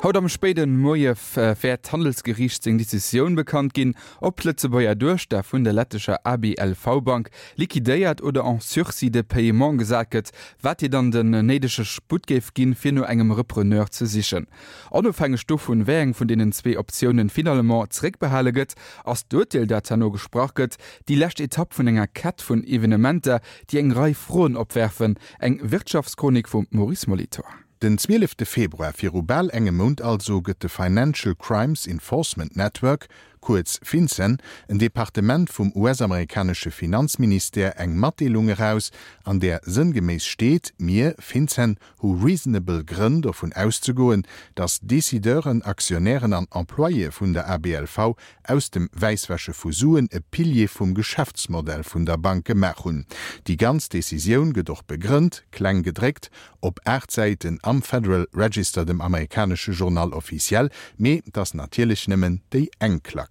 Haut am spéide Moie wäert d'Handelsgeriicht seng Decisioun bekannt ginn, ob d'Lëtzebuerger Duechter vun der lettescher ABLV-Bank liquidéiert oder en sursis de paiement gesat gëtt, wat hir dann den néidege Sputt géif ginn, fir no engem Repreneur ze sichen. Onofhängeg dovun, wéi eng vun deenen zwee Optiounen finalement zeréckbehale gëtt, ass d'Urteel, dat herno gesprach gëtt, déi lescht Etapp vun enger Kett vun Evenementer, déi eng Rei Froen opwerfen. Eng Wirtschaftschronik vum Maurice Molitor. Den 12 Februar, viru bal engem Mount also, gëtt de Financial Crimes Enforcement Network, kuerz FinCEN, en Departement vum US-amerikanesche Finanzministère, eng Matdeelung eraus, an där sënngeméiss steet, Mir, FinCEN, hu reasonable Grënn dovun auszegoen, datt Decideuren, Aktionären an Employéë vun der ABLV aus dem Wäisswäsche vu Suen e Pilier vum Geschäftsmodell vun der Bank gemaach hunn. Déi ganz Decisioun gëtt och begrënnt, kleng gedréckt, op 8 Säiten am Federal Register, dem amerikanesche Journal officiel, mee 't ass natierlech nëmmen déi eng Klack.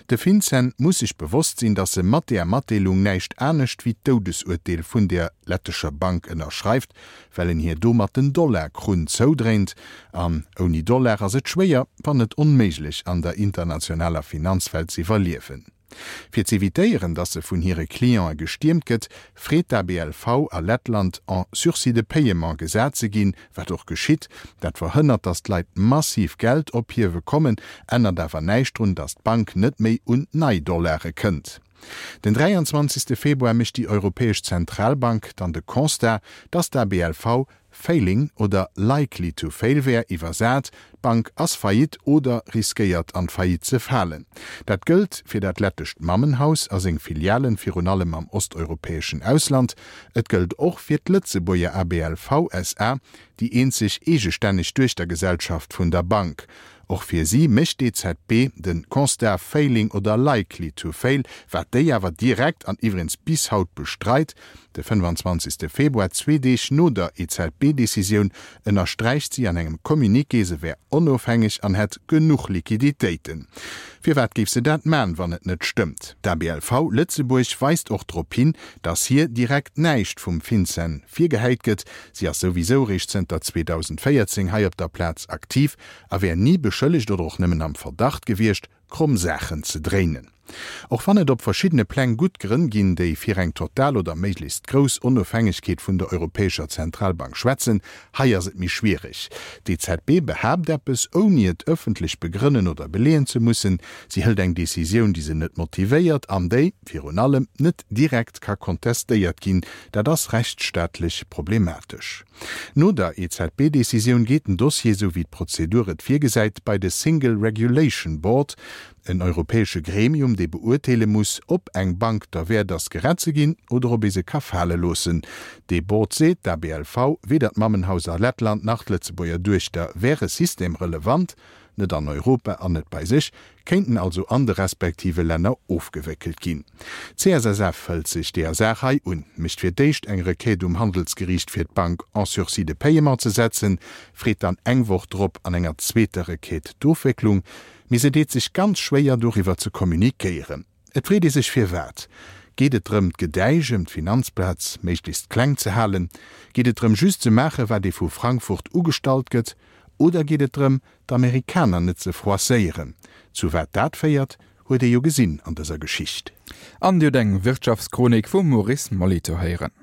De FinCEN muss sech bewosst sinn, datt e mat deer Matdeelung näischt anescht wéi d'Doudesurteel vun deer lettescher Bank ënnerschreift, well en hir domat den Dollarkrunn zoudréint. An ouni Dollar ass et schwéier, wann net onméiglech, an der internationaler Finanzwelt z'iwwerliewen. Fir z'evitéieren, datt se vun hire Clientë gestiermt gëtt, freet d'ABLV a Lettland, en sursis de paiement gesat ze ginn, wat och geschitt. Dat verhënnert, datt d'Leit massiv Geld ophiewe kommen, ännert awer näischt drun, datt d'Bank net méi un nei Dollare kënnt. Den 23. Februar mécht déi Europäesch Zentralbank dann de Constat, datt d'ABLV failing oder likely to fail wär, iwwersat, d'Bank ass faillite oder riskéiert an d'Faillite ze falen. Dat gëllt fir dat lettescht Mammenhaus a seng Filialen, virun allem am osteuropäeschen Ausland. Et gëllt och fir d'Lëtzebuerger ABLV SA, déi eenzeg eegestänneg Duechtergesellschaft vun der Bank. Och fir si mécht d'EZB de Constat failing oder likely to fail, wat déi awer direkt an iwwregens bis haut bestreit. De 25. Februar, zwee Deeg no der EZB-Decisioun, ënnersträicht si an engem Communiqué, se wär onofhängeg an hätt genuch Liquiditéiten. Firwat géif se dat man, wann et net stëmmt? D'ABLV Lëtzebuerg weist och drop hin, datt hir direkt näischt vum FinCEN virgehäit gëtt. Si ass souwisou réischt zënter 2014 hei op der Plaz aktiv a wär ni beschëllegt oder och nëmmen am Verdacht gewiescht, kromm Saachen ze dréinen. Och wann et op verschiddene Pläng gutt Grënn ginn, déi fir eng total oder méiglechst grouss Onofhängegkeet vun der Europäescher Zentralbank schwätzen, hei ass et méi schwiereg. D'EZB behaapt eppes, ouni et ëffentlech begrënnen oder beleeën ze mussen. Si hëlt eng Decisioun, déi se net motivéiert an déi, virun allem, net direkt ka kontestéiert ginn. Dat ass rechtsstaatlech problematesch. No der EZB-Decisioun geet den Dossier, sou wéi d'Prozedur et virgesäit, bei de Single Regulation Board, en europäesche Gremium, dee beurteele muss, ob eng Bank derwäert ass, gerett ze ginn oder ob ee se ka fale loossen. Dee Board seet, d'ABLV, weder d'Mammenhaus a Lettland nach d'Lëtzebuerger Duechter wäre systemrelevant, net an Europa an net bei sech, kéinten also an de respektive Länner ofgewéckelt ginn. D'CSSF hëlt sech deeër Saach hei un, mécht fir d'éischt eng Requête um Handelsgeriicht fir d'Bank en sursis de paiement ze setzen, freet dann eng Woch drop an enger zweeter Requête d'Ofwécklung, mee se deet sech ganz schwéier doriwwer ze communiquéieren. Et freet ee sech firwat. Geet et drëm d'Gedäisch ëm d'Finanzplaz méiglechst kleng ze halen? Geet et drëm just ze maache wat ee vu Frankfurt ugestallt gëtt? Oder geet et drëm d'Amerikaner net ze froisséieren? Zu wat dat féiert, huet ee jo gesinn an dëser Geschicht. An Dir hutt eng Wirtschaftschronik vum Maurice Molitor héieren.